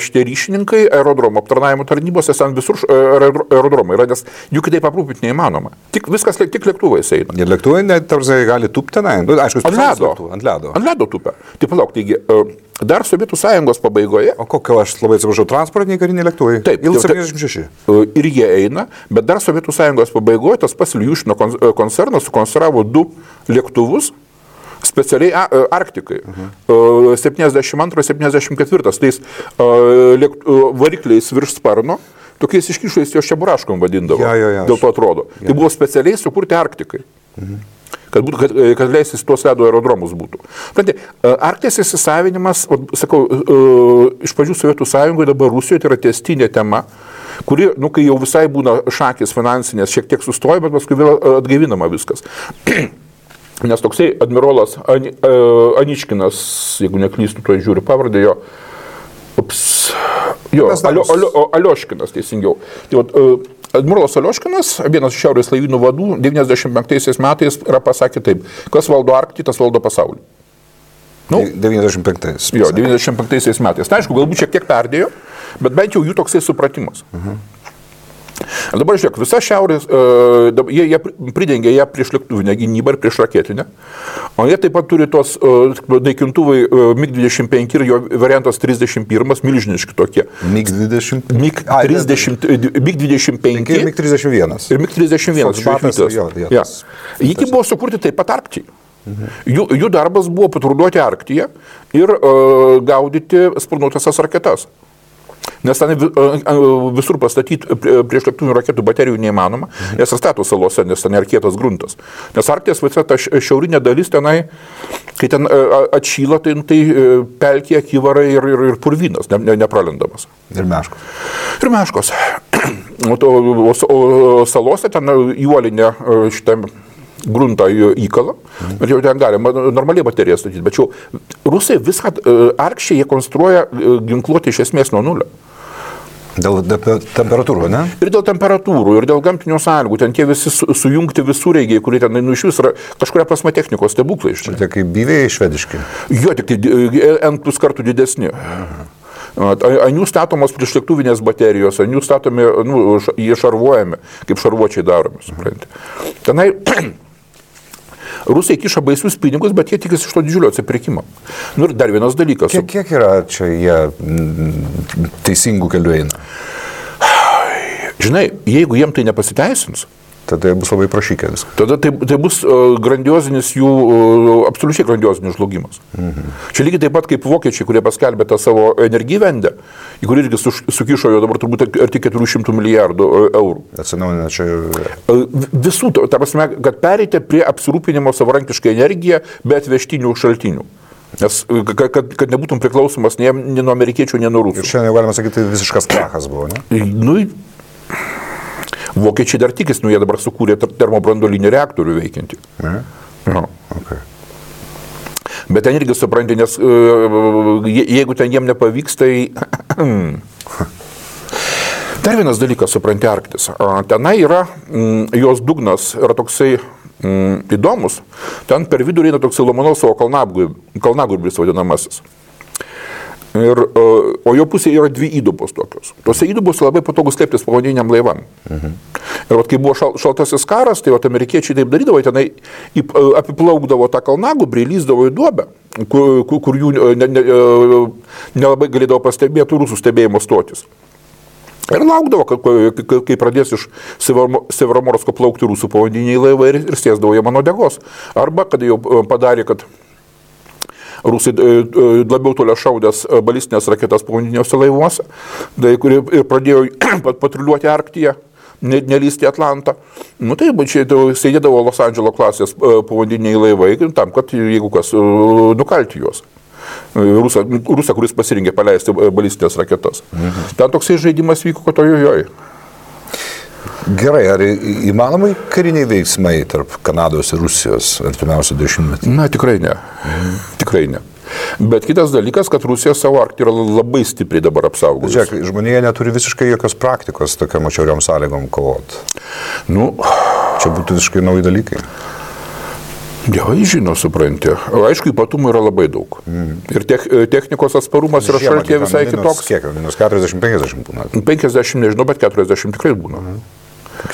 šitie ryšininkai aerodromo aptarnavimo tarnybose, ten visur aerodromai yra, nes jų kitaip aprūpinti neįmanoma. Tik lėktuvais eina. Ir lėktuvai tarsi gali tūpti tenai. Aišku, ant ledo tupia. Tai palauk, taigi dar Sovietų Sąjungos pabaigoje. O kokio, aš labai atsiprašau, transportiniai kariniai lėktuvai? Taip. Il-76. Ir jie eina, bet dar Sovietų Sąjungos pabaigoje tas pats Iljušino koncernas sukonstravo 2 lėktuvus specialiai Arktikai. 72-74. Tais varikliais virš sparno. Tokiais iškišais jos čeburaškom vadindavo. Dėl to atrodo. Tai buvo specialiai sukurti Arktikai. Kad leisis tuos ledo aerodromus būtų. Arkties įsisavinimas, sakau, iš pradžių Sovietų Sąjungoje, dabar Rusijoje, tai yra tęstinė tema, kuri, kai jau visai būna šakės finansinės, šiek tiek sustoja, bet paskui vėl atgaivinama viskas. Nes toksai admirolas Aničkinas, jeigu neklystu, to žiūriu pavardę jo, Alioškinas teisingiau. Admirolas Alioškinas, vienas iš šiaurės laivynų vadų, 95 metais yra pasakė taip, kas valdo Arktį, tas valdo pasaulį. 95. Jo, 95 metais. Tai aišku, galbūt šiek tiek perdėjo, bet bent jau jų toksai supratimas. Dabar žiūrėk, visa šiaurės, jie pridengia ją prieš lėktuvinę gynybą ir prieš raketinę, o jie taip pat turi tos naikintuvai MiG-25 ir jo variantas 31, milžiniški tokie. MiG-20? MiG-25 ir MiG-31. Ir MiG-31. Jie buvo sukurti taip pat Arktyje. Jų darbas buvo patruliuoti Arktyje ir gaudyti sparnuotąsias raketas. Nes ten visur pastatyti priešlėktuvinių raketų baterijų neįmanoma, nes stato salose, nes ten yra kietas gruntas. Nes Arkties visa ta šiaurinė dalis tenai, kai ten atšyla, tai pelkė, kyvarai ir purvynas, nepralendamas. Ir meškos. Ir meškos. O salose ten įuolinė šitą gruntą įkalą, bet jau ten galima normaliai bateriją statyti. Bet jau rusai viską Arkščiai jie konstruoja ginkluoti iš esmės nuo nulio. Dėl temperatūrų, ne? Ir dėl temperatūrų, ir dėl gamtinių sąlygų. Ten tie visi sujungti visureigiai, kurie ten iš vis yra kažkuria prasme technikos stebuklai. Tai kaip byviai švediški? Jo, tik tai N plus kartų didesni. Ant jų statomos priešlėktuvinės baterijos, ant jų statomi, jie šarvuojami, kaip šarvuočiai daromi, supranti. Tenai Rusai kiša baisius pinigus, bet jie tikisi iš to didžiulio atsipirkimo. Ir dar vienas dalykas. Kiek yra čia jie teisingų kelių eina? Žinai, jeigu jiem tai nepasiteisins, Tada bus labai prašykę viską. Tada tai bus grandiozinis jų, absoliučiai grandiozinis žlugimas. Čia lygiai taip pat kaip vokiečiai, kurie paskelbė tą savo energivendę, į kurį irgi sukišo jo dabar turbūt arti 400 milijardų eurų. Atsinaujina čia. Visų, ta prasme, kad pereiti prie apsirūpinimo savarankiškai energiją be atvežtinių šaltinių. Nes kad nebūtum priklausomas nei nuo amerikiečių, nei nuo rusų. Ir šiandien galima sakyti, visiškas krachas buvo, ne? Nu, vokiečiai dar tikis, jie dabar sukūrė termobranduolinį reaktorių veikiantį. Ne? Okay. Bet ten irgi supranti, nes jeigu ten jiem nepavyks, tai... Dar vienas dalykas, supranti, Arktis. Tenai yra, jos dugnas yra toksai įdomus. Ten per vidurį eina toksai Lomonosovo kalnagūrbis vadinamasis. O jo pusėje yra 2 įdubos tokios. Tuose įdubose labai patogus slėptis povandeniniam laivam. Ir vat, kai buvo šaltasis karas, tai vat, amerikiečiai taip darydavo, tenai apiplaukdavo tą kalnagūbrį, lyzdavo į duobę, kur jų nelabai galėdavo pastebėti rusų stebėjimo stotis. Ir laukdavo, kai pradės iš Severomorsko plaukti rusų povandeniniai laivai ir sėsdavo jie mano degos. Arba, kad jau padarė, kad rusai labiau toliau šaudęs balistinės raketas povandeniniuose laivuose, kurie pradėjo patruliuoti Arktyje, nelysti Atlantą. Nu tai čia sėdėdavo Los Andželo klasės povandeniniai laivai, tam, kad jeigu kas, nukalti juos. Rusą, kuris pasirinkė paleisti balistinės raketas. Ten toksai žaidimas vyko, kad ojojoj. Gerai, ar įmanomai kariniai veiksmai tarp Kanados ir Rusijos artimiausių 10 metų? Na, tikrai ne. Tikrai ne. Bet kitas dalykas, kad Rusija savo Arktį yra labai stipriai dabar apsaugos. Žiūrėk, žmonėje neturi visiškai jokios praktikos tokiam atšiauriom sąlygom kovoti. Nu, čia būtų visiškai nauji dalykai. Dievai žino, supranti. Aišku, ypatumų yra labai daug. Ir technikos atsparumas yra šaltyje visai kitoks. Kiek? Minus 40-50 būna? 50 nežinau, bet 40 tikrai būna.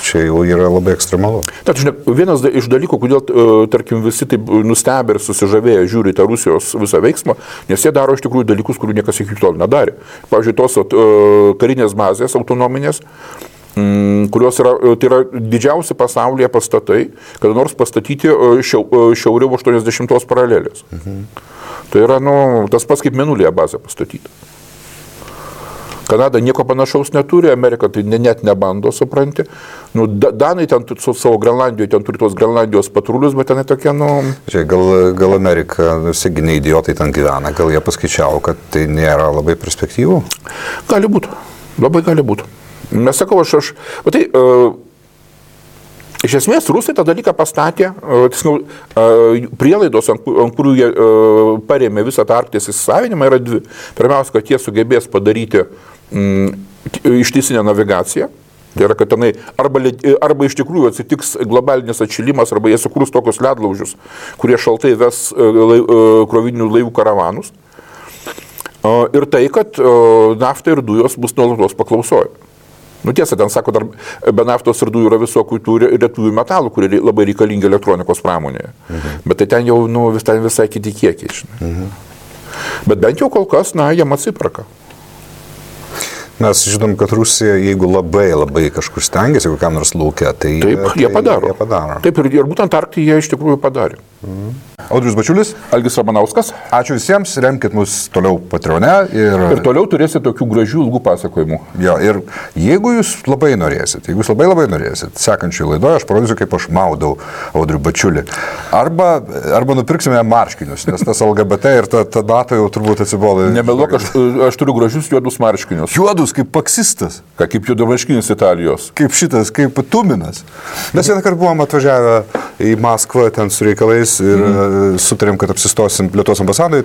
Čia jau yra labai ekstremalu. Tad, žinai, vienas iš dalykų, kodėl, tarkim, visi taip nustebę ir susižavėję žiūri tą Rusijos visą veiksmą, nes jie daro iš tikrųjų dalykus, kurių niekas iki tol nedarė. Pavyzdžiui, tos karinės bazės autonominės, kurios yra, tai yra didžiausi pasaulyje pastatai, kada nors pastatyti šiauriau 80 paralelės. Tai yra, tas pats kaip Mėnulyje bazę pastatyti. Kanada nieko panašaus neturi, Amerika tai net nebando, supranti. Danai ten su savo Grenlandijoje, ten turi tos Grenlandijos patrulius, bet ten tokie, Gal Amerika, ne idiotai ten gyvena, gal jie paskaičiavo, kad tai nėra labai perspektyvų? Gali būti, labai gali būti. Mes sakau, iš esmės Rusai tą dalyką pastatė, prielaidos, ant kurių jie parėmė visą tą Arkties įsisavinimą, yra 2. Pirmiausia, kad jie sugebės padaryti ištisinę navigaciją. Tai yra, kad tenai arba iš tikrųjų atsitiks globalinis atšilimas, arba jie sukurs tokius ledlaužius, kurie šaltai ves krovininių laivų karavanus. Ir tai, kad nafta ir dujos bus nuolatos paklausoje. Tiesa, ten sako, dar be naftos ir dujų yra visokių tų retųjų metalų, kurie labai reikalingi elektronikos pramonėje. Bet tai ten jau visai kiti kiekiai, žinai. Bet bent jau kol kas, jiem atsiperka. Mes žinom, kad Rusija, jeigu labai kažkur stengiasi, kokiam nors lauke, tai... Taip, jie padaro. Taip, ir būtent Arktyje jie iš tikrųjų padarė. Audrius Bačiulis, Algis Ramanauskas. Ačiū visiems, remkit mus toliau Patreone. Ir toliau turėsite tokių gražių ilgų pasakojimų. Jo, ir jeigu jūs labai norėsit, sekančiai laidoje aš parodysiu, kaip aš maudau Audrių Bačiulį. Arba nupirksime marškinius, nes tas LGBT ir ta data jau turbūt atsibodo. Nemeluok, aš turiu gražius juodus marškinius. Juodus kaip paksistas. Kaip juodamarškinis Italijos. Kaip šitas, kaip Tuminas. Mes vieną kartą buvom atvažiavę į Maskvą ten su reikalais ir sutarėm, kad apsistosim Lietuvos ambasadoje.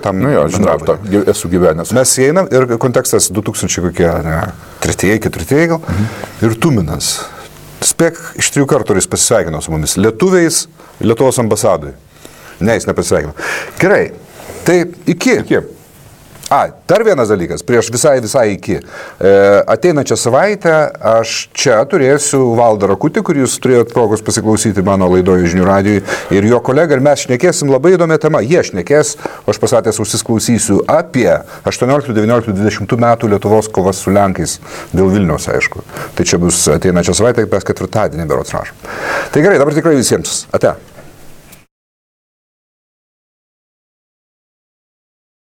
Žinau, esu gyvenęs. Mes įeinam ir kontekstas 2003 gal. Ir Tuminas. Spėk, iš 3 kartų jis pasisveikino su mumis. Lietuviais Lietuvos ambasadoje. Ne, jis nepasisveikino. Gerai, tai iki. Dar vienas dalykas, prieš visai iki. Ateinančią savaitę aš čia turėsiu Valdą Rakutį, kurį jūs turėjot progos pasiklausyti mano laidoje Žinių radijui, ir jo kolega, ir mes šnekėsim labai įdomią temą. Jie šnekės, o aš pasatęs užsisklausysiu apie 18, 19, 20 metų Lietuvos kovas su Lenkais dėl Vilniaus, aišku. Tai čia bus ateinančią savaitę, mes ketvirtadienį berods rašom. Tai gerai, dabar tikrai visiems. Ate.